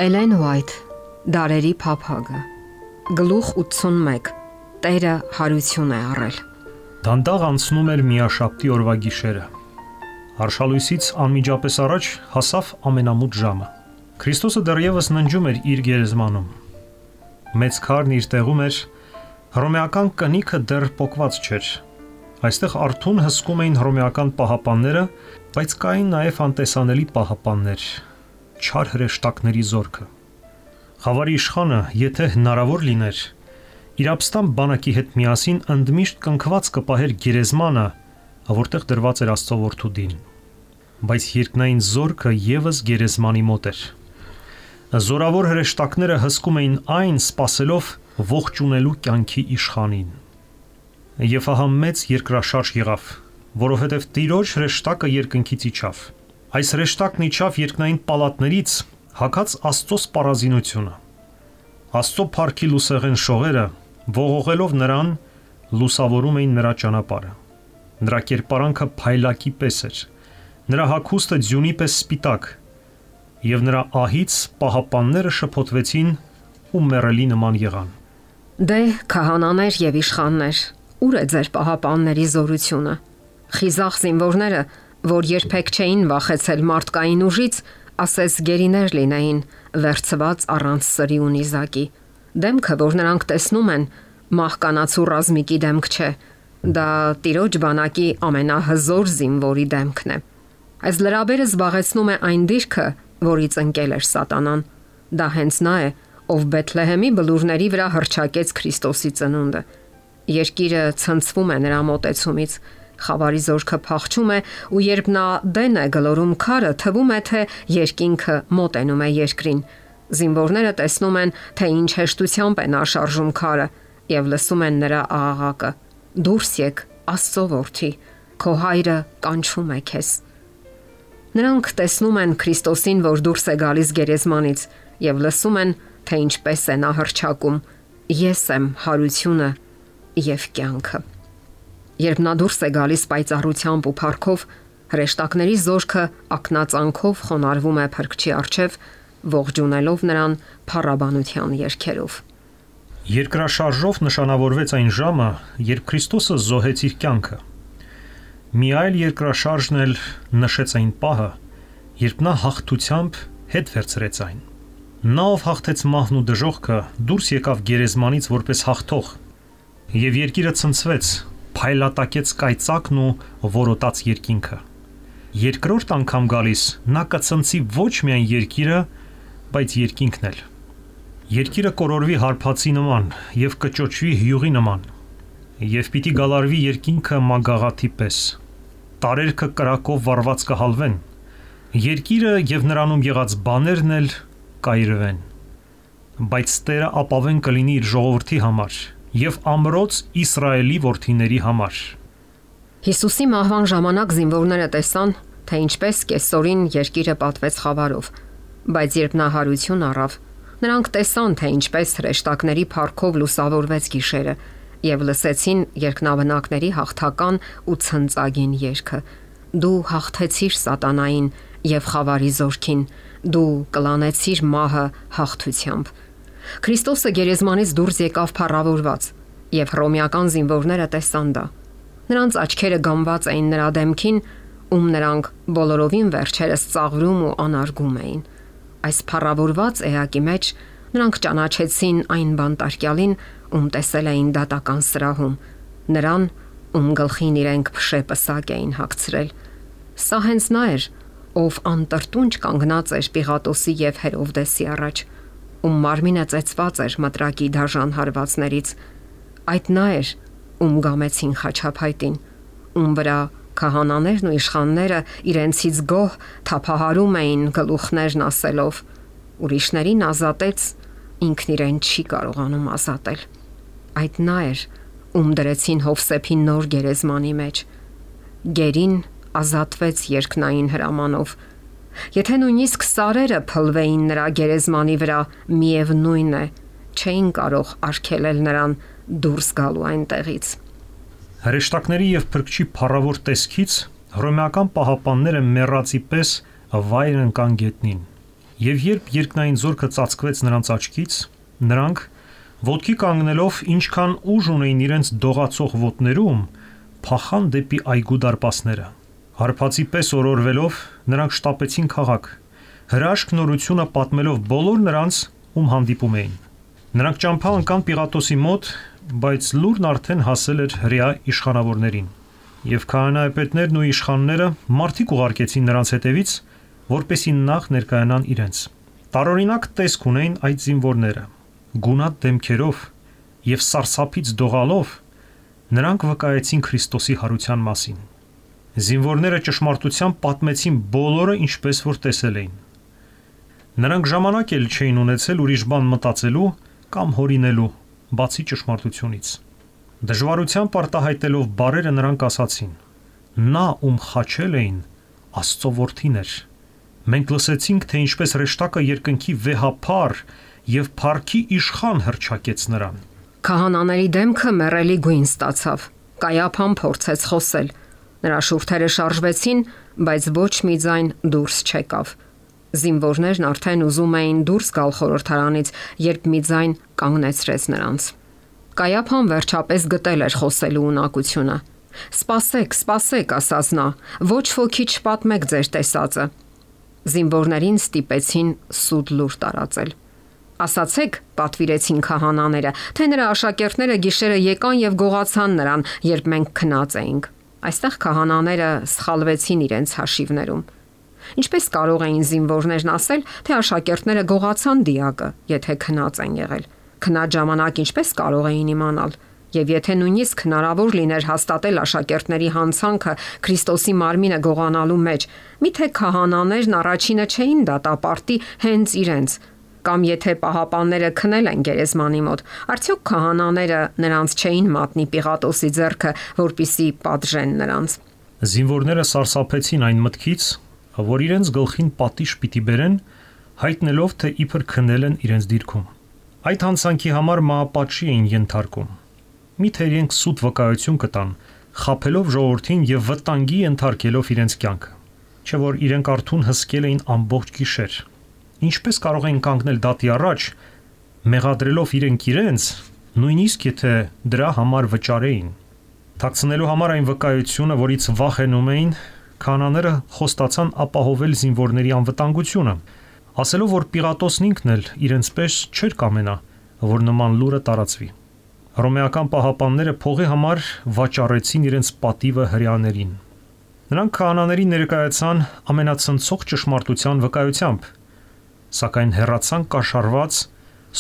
Էլեն Ուայթ, Դարերի փափագը, գլուխ 81, Տերը հարություն է առել։ Դանդաղ անցնում էր միաշաբթի օրվա գիշերը։ Արշալույսից անմիջապես առաջ հասավ ամենամութ ժամը։ Քրիստոսը դեռևս ննջում էր իր գերեզմանում։ Մեծ քարն իր տեղում էր, հռոմեական կնիքը դեռ պոկված չէր։ Այստեղ արթուն հսկում էին հռոմեական պահապանները, բայց կային նաև անտեսանելի պահապաններ, չար հրեշտակների զորքը։ Խավարի իշխանը, եթե հնարավոր լիներ, իր ապստամբ բանակի հետ միասին ընդմիշտ կնքված կպահեր գերեզմանը, որտեղ դրված էր Աստծո որդու դին։ Բայց երկնային զորքը եւս գերեզմանի մոտ էր։ Զորավոր հրեշտակները հսկում էին այն, սпасելով ողջունելու կյանքի իշխանին։ Եվ ահա մեծ երկրաշարժ եղավ, որովհետև Տիրոջ հրեշտակը երկնքից իջավ։ Այս հրեշտակն իջավ երկնային պալատներից, հագած Աստծո սպառազինությունը։ Աստծո փառքի լուսեղեն շողերը, ողողելով նրան, լուսավորում էին նրա ճանապարհը։ Նրա կերպարանքը փայլակի պես էր, նրա հագուստը ձյունի պես սպիտակ, եւ նրա ահից պահապանները շփոթվեցին ու մեռելի նման եղան։ Դե քահանաներ եւ իշխաններ, ուր է ձեր պահապանների զորությունը։ Խիզախ զինվորները, որ երբեք չէին վախեցել մարդկային ուժից, ասես գերիներ լինեին, վերցված առանց սրի ու նիզակի։ Դեմքը, որ նրանք տեսնում են, մահկանացու ռազմիկի դեմք չէ, դա Տիրոջ բանակի ամենահզոր զինվորի դեմքն է։ Այս լրաբերը զբաղեցնում է այն դիրքը, որից ընկել էր Սատանան։ Դա հենց նա է, ով Բեթլեհեմի բլուրների վրա հռչակեց Քրիստոսի ծնունդը։ Երկիրը ցնցվում է նրա մոտեցումից, խավարի զորքը փախչում է, ու երբ նա դեն է գլորում քարը, թվում է, թե երկինքը մոտենում է երկրին։ Զինվորները տեսնում են, թե ինչ հեշտությամբ է նա շարժում քարը, եւ լսում են նրա աղաղակը. «Դուրս եք, Աստծո որդի, քո հայրը կանչում է քեզ»։ Նրանք տեսնում են Քրիստոսին, որ դուրս է գալիս գերեզմանից, եւ լսում են, թե ինչպես է նա հռչակում. «Ես եմ հարությունը եւ կյանքը»։ Երբ նա դուրս է գալիս պայծառությամբ ու փառքով, հրեշտակների զորքը ակնածանքով խոնարհվում է Փրկչի առջև, ողջունելով նրան փառաբանության երգերով։ Երկրաշարժով նշանավորվեց այն ժամը, երբ Քրիստոսը զոհեց իր կյանքը։ Մի այլ երկրաշարժն էլ նշեց այն պահը, երբ նա հաղթությամբ հետ վերցրեց այն։ Նա, ով հաղթեց մահն ու դժոխքը, դուրս եկավ գերեզմանից որպես հաղթող, եւ երկիրը ցնցվեց, փայլատակեց կայծակն ու որոտաց երկինքը։ Երկրորդ անգամ գալիս նա կցնցի ոչ միայն երկիրը, բայց երկինքն էլ։ Երկիրը կորորվի հարբածի նման եւ կճոճվի հյուղի նման, եւ պիտի գալարվի երկինքը մագաղաթի պես։ Տարերքը կրակով վառված կհալվեն, երկիրը եւ նրանում եղած բաներն էլ կայրվեն։ Բայց Տերը ապավեն կլինի իր ժողովրդի համար եւ ամրոց Իսրայելի որդիների համար։ Հիսուսի մահվան ժամանակ զինվորները տեսան, թե ինչպես կեսօրին երկիրը պատվեց խավարով, բայց երբ նա հարություն առավ, նրանք տեսան, թե ինչպես հրեշտակների փառքով լուսավորվեց գիշերը եւ լսեցին երկնաբնակների հաղթական ու ցնծագին երգը. «Դու հաղթեցիր Սատանային եւ խավարի զորքին, դու կլանեցիր մահը հաղթությամբ»։ Քրիստոսը գերեզմանից դուրս եկավ փառավորված, եւ հռոմեական զինվորները տեսան դա։ Նրանց աչքերը գամված էին նրա դեմքին, ում նրանք բոլորովին վերջերս ծաղրում ու անարգում էին։ Այս փառավորված էակի մեջ նրանք ճանաչեցին այն բանտարկյալին, ում տեսել էին դատական սրահում, նրան, ում գլխին իրենք փշե պսակ էին հագցրել։ Սա հենց նա էր, ով անտրտունջ կանգնած էր Պիղատոսի եւ Հերովդեսի առաջ, ում մարմինը ծեծված էր մտրակի դաժան հարվածներից։ Այդ նա էր, ում գամեցին խաչափայտին, ում վրա քահանաներն ու իշխանները իրենցից գոհ թափահարում էին գլուխներն ասելով. «Ուրիշներին ազատեց, ինքն իրեն չի կարողանում ազատել»։ Այդ նա էր, ում դրեցին Հովսեփի նոր գերեզմանի մեջ։ Գերին ազատվեց երկնային հրամանով։ Եթե նույնիսկ սարերը փլվեին նրա գերեզմանի վրա, միևնույն է, չէին կարող արգելել նրան դուրս գալու այնտեղից։ Հրեշտակների եւ Փրկչի փառավոր տեսքից հռոմեական պահապանները մեռածի պես վայր ընկան գետնին։ Եվ երբ երկնային զորքը ծածկվեց նրանց աչքից, նրանք ոտքի կանգնելով ինչքան ուժ ունեին իրենց դողացող ոտներում, փախան դեպի այգու դարպասները։ Հարբածի պես օրորվելով նրանք շտապեցին քաղաք, հրաշք նորությունը պատմելով բոլոր նրանց, ում հանդիպում էին։ Նրանք ճամփա ընկան Պիղատոսի մոտ, բայց լուրն արդեն հասել էր հրեա իշխանավորներին։ Եվ քահանայապետներն ու իշխանները մարդիկ ուղարկեցին նրանց հետևից, որպեսզի նախ ներկայանան իրենց։ Տարօրինակ տեսք ունեին այդ զինվորները։ Գունատ դեմքերով եւ սարսափից դողալով նրանք վկայեցին Քրիստոսի հարության մասին։ Զինվորները ճշմարտությամբ պատմեցին բոլորը ինչպես որ տեսել էին։ Նրանք ժամանակ էլ չէին ունեցել ուրիշ բան մտածելու կամ հորինելու, բացի ճշմարտությունից։ Դժվարությամբ արտահայտելով բառերը նրանք ասացին. «Նա, ում խաչել էին, Աստծո որդին էր։ Մենք լսեցինք, թե ինչպես հրեշտակը երկնքի վեհափառ եւ փառքի իշխան հռչակեց նրան»։ Քահանաների դեմքը մեռելի գույն ստացավ։ Կայափան փորձեց խոսել։ Նրա շուրթերը շարժվեցին, բայց ոչ մի ձայն դուրս չեկավ։ Զինվորներն արդեն ուզում էին դուրս գալ խորհրդարանից, երբ մի ձայն կանգնեցրեց նրանց։ Կայափան վերջապես գտել էր խոսելու ունակությունը։ «Սպասեք, սպասեք», ասաց նա, «ոչ ոքի չպատմեք ձեր տեսածը»։ Զինվորներին ստիպեցին սուտ լուր տարածել։ «Ասացեք», պատվիրեցին քահանաները, «թե նրա աշակերտները գիշերը եկան եւ գողացան նրան, երբ մենք քնած էինք»։ Այստեղ քահանաները սխալվեցին իրենց հաշիվներում։ Ինչպես կարող էին զինվորներն ասել, թե աշակերտները գողացան դիակը, եթե քնած են եղել։ Քնած ժամանակ ինչպես կարող էին իմանալ։ Եվ եթե նույնիսկ հնարավոր լիներ հաստատել աշակերտների հանցանքը Քրիստոսի մարմինը գողանալու մեջ, միթե քահանաներն առաջինը չէին դատապարտի հենց իրենց, կամ եթե պահապանները քնել են գերեզմանի մոտ, արդյոք քահանաները նրանց չէին մատնի Պիղատոսի ձեռքը, որպիսի պատժեն նրանց։ Զինվորները սարսափեցին այն մտքից, որ իրենց գլխին պատիժ պիտի բերեն, հայտնելով, թե իբր քնել են իրենց դիրքում։ Այդ հանցանքի համար մահապատժի էին ենթարկում։ Միթե իրենք սուտ վկայություն կտան, խաբելով ժողովրդին եւ վտանգի ենթարկելով իրենց կյանքը։ Չէ որ իրենք արթուն հսկել էին ամբողջ գիշեր։ Ինչպես կարող էին կանգնել դատի առաջ, մեղադրելով իրենց, նույնիսկ եթե դրա համար վճարեին։ Թաքցնելու համար այն վկայությունը, որից վախենում էին, քահանաները խոստացան ապահովել զինվորների անվտանգությունը, ասելով, որ Պիղատոսն ինքն էլ իրենց պես չէր կամենա, որ նման լուրը տարածվի։ Հռոմեական պահապանները փողի համար վաճառեցին իրենց պատիվը հրեաներին։ Նրանք քահանաների ներկայացան ամենացնցող ճշմարտության վկայությամբ, սակայն հեռացան կաշառված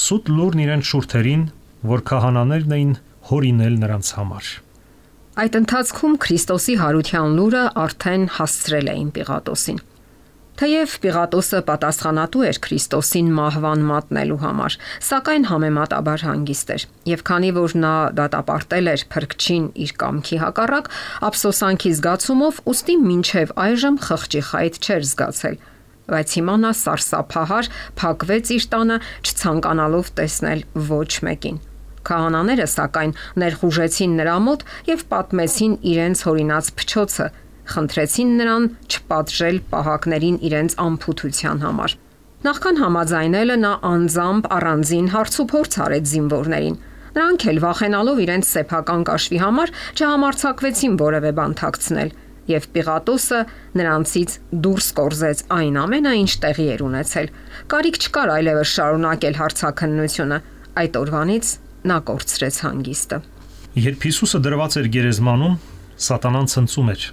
սուտ լուրն իրենց շուրթերին, որ քահանաներն էին հորինել նրանց համար։ Այդ ընթացքում Քրիստոսի հարության լուրը արդեն հասցրել էին Պիղատոսին։ Թեև Պիղատոսը պատասխանատու էր Քրիստոսին մահվան մատնելու համար, սակայն համեմատաբար հանգիստ էր, եւ քանի որ նա դատապարտել էր փրկչին իր կամքի հակառակ, ափսոսանքի զգացումով ուստի մինչև այժմ խղճի խայտ չէր զգացել, բայց հիմա նա սարսափահար փակվեց իր տանը, չցանկանալով տեսնել ոչ մեկին։ Քահանաները սակայն ներխուժեցին նրա մոտ եւ պատմեցին իրենց հորինած փչոցը, խնդրեցին նրան չպատժել պահակներին իրենց անփութության համար։ Նախքան համաձայնելը նա անձամբ առանձին հարցուփորձ արեց զինվորներին։ Նրանք էլ վախենալով իրենց սեփական կաշվի համար չհամարձակվեցին որևէ բան թաքցնել, եւ Պիղատոսը նրանցից դուրս կորզեց այն ամենը, ինչ տեղի էր ունեցել։ Կարիք չկար այլևս շարունակել հարցաքննությունը։ Այդ օրվանից նա կորցրեց հանգիստը։ Երբ Հիսուսը դրված էր գերեզմանում, Սատանան ցնծում էր։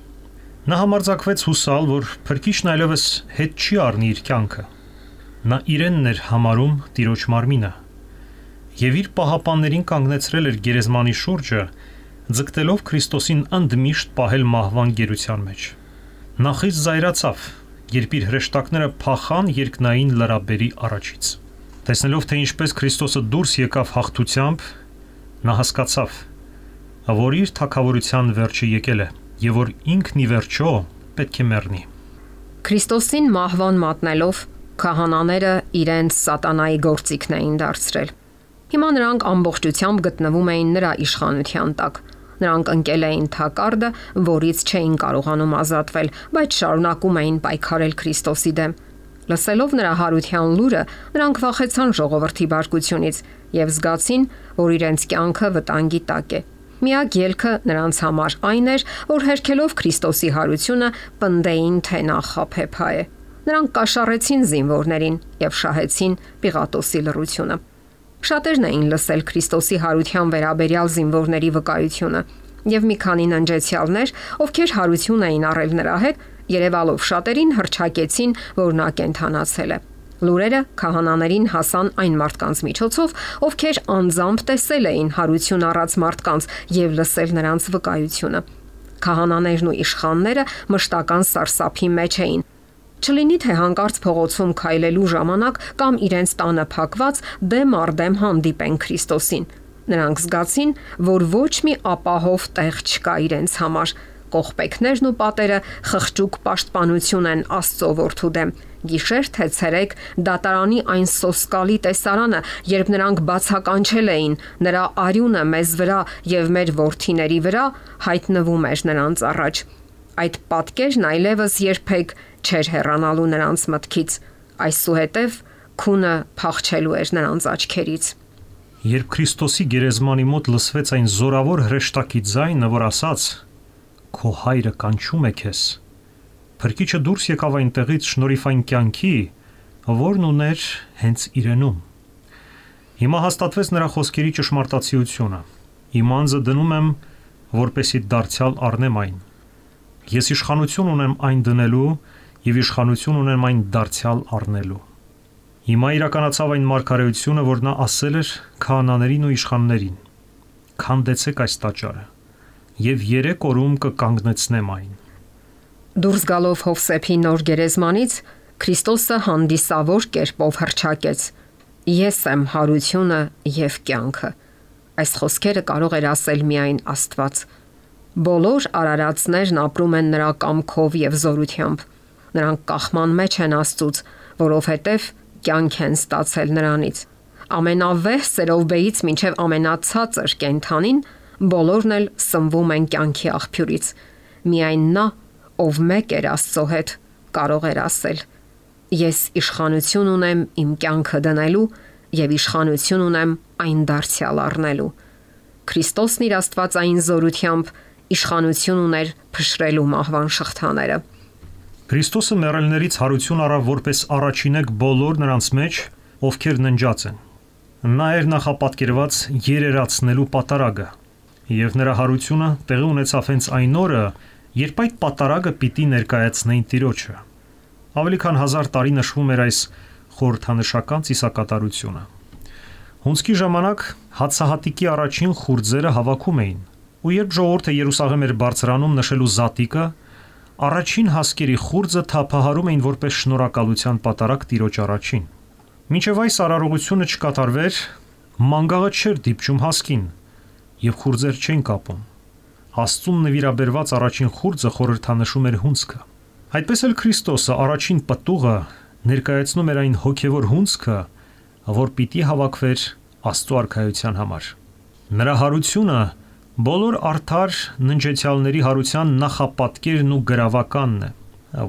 Նա համարձակվեց հուսալ, որ Փրկիչն այլևս հետ չի առնի իր կյանքը։ Նա իրենն էր համարում Տիրոջ մարմինը, եւ իր պահապաններին կանգնեցրել էր գերեզմանի շուրջը, ձգտելով Քրիստոսին ընդմիշտ պահել մահվան գերության մեջ։ Նա խիստ զայրացավ, երբ իր հրեշտակները փախան երկնային լրաբերի առաջից։ Տեսնելով, թե ինչպես Քրիստոսը դուրս եկավ հաղթությամբ, նա հասկացավ, որ իր թագավորության վերջը եկել է եւ որ ինքն ի վերջո պետք է մեռնի։ Քրիստոսին մահվան մատնելով քահանաները իրենց սատանայի գործիքն էին դարձրել։ Հիմա նրանք ամբողջությամբ գտնվում էին նրա իշխանության տակ։ Նրանք ընկել էին թակարդը, որից չէին կարողանում ազատվել, բայց շարունակում էին պայքարել Քրիստոսի դեմ։ Լսելով նրա հարության լուրը, նրանք վախեցան ժողովրդի բարկությունից եւ զգացին, որ իրենց կյանքը վտանգի տակ է։ Միակ ելքը նրանց համար այն էր, որ հերքելով Քրիստոսի հարությունը, պնդեին, թե նա խաբեբա է։ Նրանք կաշառեցին զինվորներին եւ շահեցին Պիղատոսի լռությունը։ Շատերն էին լսել Քրիստոսի հարության վերաբերյալ զինվորների վկայությունը, եւ մի քանի ննջեցյալներ, ովքեր հարություն էին առել նրա հետ, երևալով շատերին հռչակեցին, որ նա կենդանացել է։ Լուրերը քահանաներին հասան այն մարդկանց միջոցով, ովքեր անձամբ տեսել էին հարություն առած մարդկանց եւ լսել նրանց վկայությունը։ Քահանաներն ու իշխանները մշտական սարսափի մեջ էին։ Չլինի թե հանկարծ փողոցում քայլելու ժամանակ կամ իրենց տանը փակված դեմ առ դեմ հանդիպեն Քրիստոսին։ Նրանք զգացին, որ ոչ մի ապահով տեղ չկա իրենց համար։ Կողպեքներն ու պատերը խղճուկ պաշտպանություն են Աստծո որդու դեմ։ Գիշեր թե ցերեկ դատարանի այն սոսկալի տեսարանը, երբ նրանք բացականչել էին նրա արյունը մեզ վրա եւ մեր որդիների վրա, հայտնվում էր նրանց առաջ։ Այդ պատկերն այլևս երբեք չէր հեռանալու նրանց մտքից։ Այսուհետև քունը փախչելու էր նրանց աչքերից։ Երբ Քրիստոսի գերեզմանի մոտ լսվեց այն զորավոր հրեշտակի ձայնը, որ ասաց. «Քո հայրը կանչում է քեզ», Փրկիչը դուրս եկավ այնտեղից շնորհիվ կյանքի, որն ուներ հենց իրենում։ Հիմա հաստատվեց նրա խոսքերի ճշմարտացիությունը։ Իմ անձը դնում եմ, որպեսի դարձյալ առնեմ այն։ Ես իշխանություն ունեմ այն դնելու եւ իշխանություն ունեմ այն դարձյալ առնելու։ Հիմա իրականացավ այն մարգարեությունը, որ նա ասել էր քահանաներին ու իշխաններին. «Քանդեցեք այս տաճարը, եւ 3 օրում կկանգնեցնեմ այն»։ Դուրս գալով Հովսեփի նոր գերեզմանից, Քրիստոսը հանդիսավոր կերպով հռչակեց. «Ես եմ հարությունը եւ կյանքը»։ Այս խոսքերը կարող էր ասել միայն Աստված։ Բոլոր արարածներն ապրում են նրա կամքով եւ զորությամբ։ Նրանք կախման մեջ են Աստծուց, որովհետեւ կյանք են ստացել նրանից։ Ամենավեհ սերովբեից մինչև ամենացածր կենդանին բոլորն էլ սնվում են կյանքի աղբյուրից։ Միայն նա, ով մեկ էր Աստծո հետ, կարող էր ասել. «Ես իշխանություն ունեմ իմ կյանքը դնելու եւ իշխանություն ունեմ այն դարձյալ առնելու»։ Քրիստոսն իր աստվածային զորությամբ իշխանություն ուներ փշրելու մահվան շղթաները։ Քրիստոսը մեռելներից հարություն առավ որպես առաջինեք բոլոր նրանց մեջ, ովքեր ննջած են։ Նա էր նախապատկերված երերացնելու պատարագը, եւ նրա հարությունը տեղի ունեցավ հենց այն օրը, երբ այդ պատարագը պիտի ներկայացնեին Տիրոջը։ Ավելի քան 1000 տարի նշվում էր այս խորհրդանշական ծիսակատարությունը։ Հունձքի ժամանակ հացահատիկի առաջին խուրձերը հավաքում էին, ու երբ ժողովուրդը Երուսաղեմ էր բարձրանում նշելու զատիկը, առաջին հասկերի խուրձը թափահարում էին որպես շնորհակալության պատարագ Տիրոջ առաջին։ Մինչև այս արարողությունը չկատարվեր, մանգաղը չէր դիպչում հասկին, եւ խուրձեր չեն կապում։ Աստծուն նվիրաբերված առաջին խուրձը խորհրդանշում էր հունձքը։ Այդպես էլ Քրիստոսը առաջին պտուղը ներկայացնում էր այն հոգևոր հունձքը, որ պիտի հավաքվեր Աստծո արքայության համար։ Նրա հարությունը բոլոր արդար ննջեցյալների հարության նախապատկերն ու գրավականն է,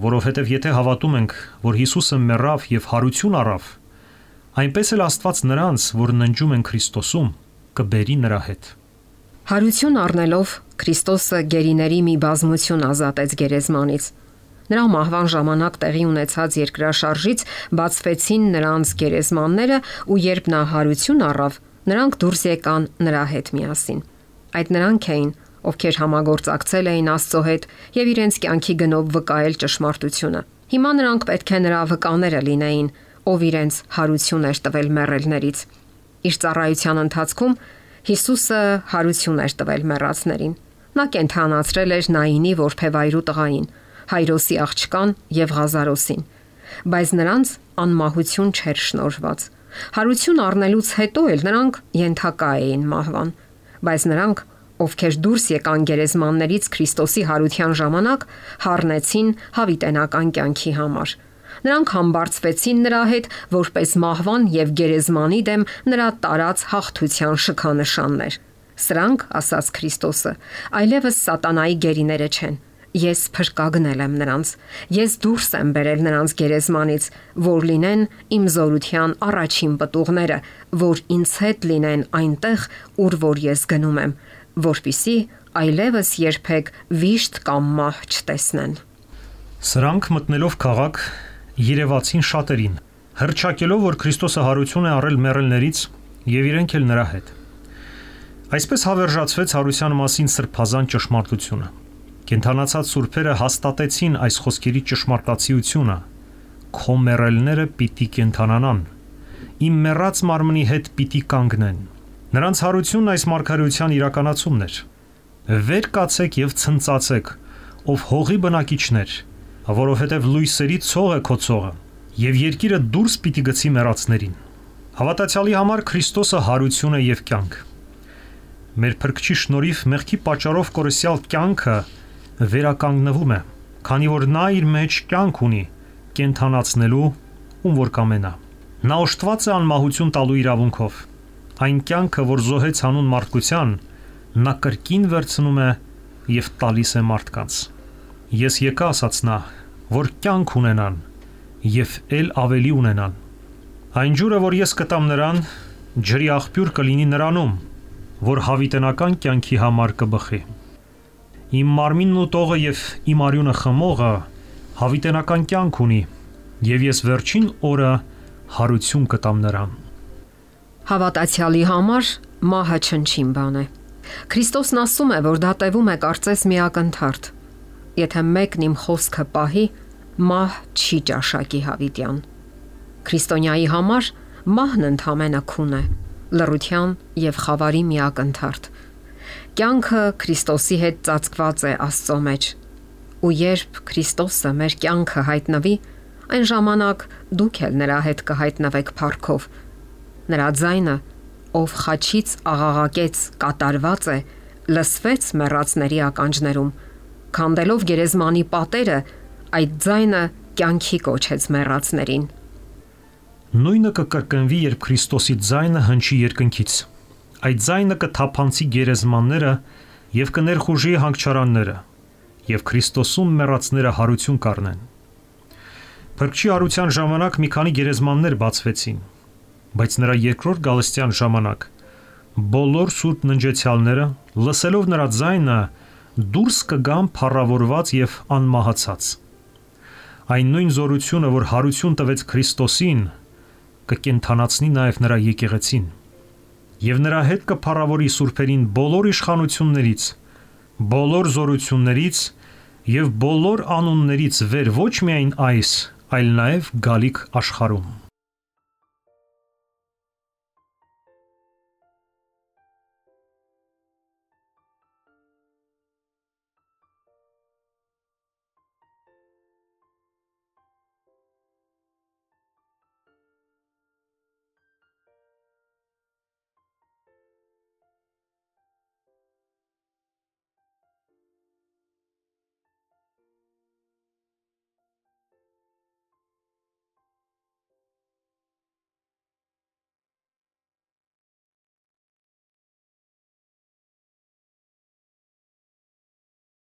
որովհետև եթե հավատում ենք, որ Հիսուսը մեռավ եւ հարություն առավ, այնպես էլ Աստված նրանց, որ ննջում են Քրիստոսում, կբերի նրա հետ։ Հարություն առնելով Քրիստոսը գերիների մի բազմություն ազատեց գերեզմանից։ Նրա մահվան ժամանակ տեղի ունեցած երկրաշարժից բացվեցին նրանց գերեզմանները, ու երբ նա հարություն առավ, նրանք դուրս եկան նրա հետ միասին։ Այդ նրանք էին, ովքեր համագործակցել էին Աստծո հետ եւ իրենց կյանքի գնով վկայել ճշմարտությունը։ Հիմա նրանք պետք է նրա վկաները լինեին, ով իրենց հարություն էր տվել մեռելներից։ Իր ծառայության ընթացքում Հիսուսը հարություն էր տվել մեռածներին։ Նա կենդանացրել էր Նայինի որբևայրու տղային, Հայրոսի աղջկան եւ Ղազարոսին, բայց նրանց անմահություն չէր շնորհված։ Հարություն առնելուց հետո էլ նրանք ենթակա էին մահվան, բայց նրանք, ովքեր դուրս եկան գերեզմաններից Քրիստոսի հարության ժամանակ, հառնեցին հավիտենական կյանքի համար։ Նրանք համբարձվեցին նրա հետ որպես մահվան եւ գերեզմանի դեմ նրա տարած հաղթության շքանշաններ։ Սրանք, ասաց Քրիստոսը, այլևս սատանայի գերիները չեն, Ես փրկագնել եմ նրանց, ես դուրս եմ բերել նրանց գերեզմանից, որ լինեն իմ զորության առաջին պտուղները, որ ինձ հետ լինեն այնտեղ, ուր որ ես գնում եմ, որպիսի այլևս երբեք վիշտ կամ մահ չտեսնեն։ Սրանք մտնելով քաղաք երևացին շատերին, հռչակելով, որ Քրիստոսը հարություն է առել մեռելներից եւ իրենք էլ նրա հետ։ Այսպես հավերժացվեց հարության մասին սրբազան ճշմարտությունը։ Կենթանացած սուրբերը հաստատեցին այս խոսքերի ճշմարտացիությունը. քո մեռելները պիտի կենթանանան, իմ մեռած մարմնի հետ պիտի կանգնեն։ Նրանց հարությունն այս մարգարեության իրականացումն էր։ Վեր կացեք եւ ցնծացեք, ով հողի բնակիչներ, որովհետեւ լույսերի ցող է քո ցողը, եւ երկիրը դուրս պիտի գցի մեռածներին։ Հավատացյալի համար Քրիստոսը հարություն է եւ կյանք։ Մեր Փրկչի շնորհիվ մեղքի պատճառով կորսյալ կյանքը վերականգնվում է, քանի որ նա իր մեջ կյանք ունի կենթանացնելու ում որ կամենա։ Նա օժտված է անմահություն տալու իրավունքով։ Այն կյանքը, որ զոհեց հանուն մարդկության, նա կրկին վերցնում է եւ տալիս է մարդկանց։ Ես եկա, ասաց նա, որ կյանք ունենան եւ ել ավելի ունենան։ Այն ջուրը, որ ես կտամ նրան, ջրի աղբյուր կլինի նրանում, որ հավիտենական կյանքի համար կբխի։ Իմ մարմինն ու տողը եւ իմ արյունը խմողը հավիտենական կյանք ունի, եւ ես վերջին օրը հարություն կտամ նրան։ Հավատացյալի համար մահը չնչին բան է։ Քրիստոսն ասում է, որ դա տևում է կարծես մի ակնթարթ։ Եթե մեկն իմ խոսքը պահի, մահ չի ճաշակի հավիտյան։ Քրիստոնյայի համար մահն ընդհանրապես քուն է, լռության եւ խավարի մի ակնթարթ։ Կյանքը Քրիստոսի հետ ծածկված է Աստծո մեջ, ու երբ Քրիստոսը մեր կյանքը հայտնվի, այն ժամանակ դուք էլ նրա հետ կհայտնվեք փառքով։ Նրա ձայնը, ով խաչից աղաղակեց, կատարված է, լսվեց մեռածների ականջներում, քանդելով գերեզմանի պատերը, այդ ձայնը կյանքի կոչեց մեռածներին։ Նույնը կկրկնվի, երբ Քրիստոսի ձայնը հնչի երկնքից։ Այդ ձայնը կթափանցի գերեզմանները եւ կներխուժի հանգչարանները, եւ Քրիստոսում մեռածները հարություն կառնեն։ Փրկչի հարության ժամանակ մի քանի գերեզմաններ բացվեցին, բայց նրա երկրորդ գալստյան ժամանակ բոլոր սուրբ ննջեցյալները, լսելով նրա ձայնը, դուրս կգան փառավորված եւ անմահացած։ Այն նույն զորությունը, որ հարություն տվեց Քրիստոսին, կկենթանացնի նաեւ նրա եկեղեցին, եւ նրա հետ կփառավորի սուրբերին բոլոր իշխանություններից, բոլոր զորություններից եւ բոլոր անուններից վեր ոչ միայն այս, այլ նաեւ գալիք աշխարհում։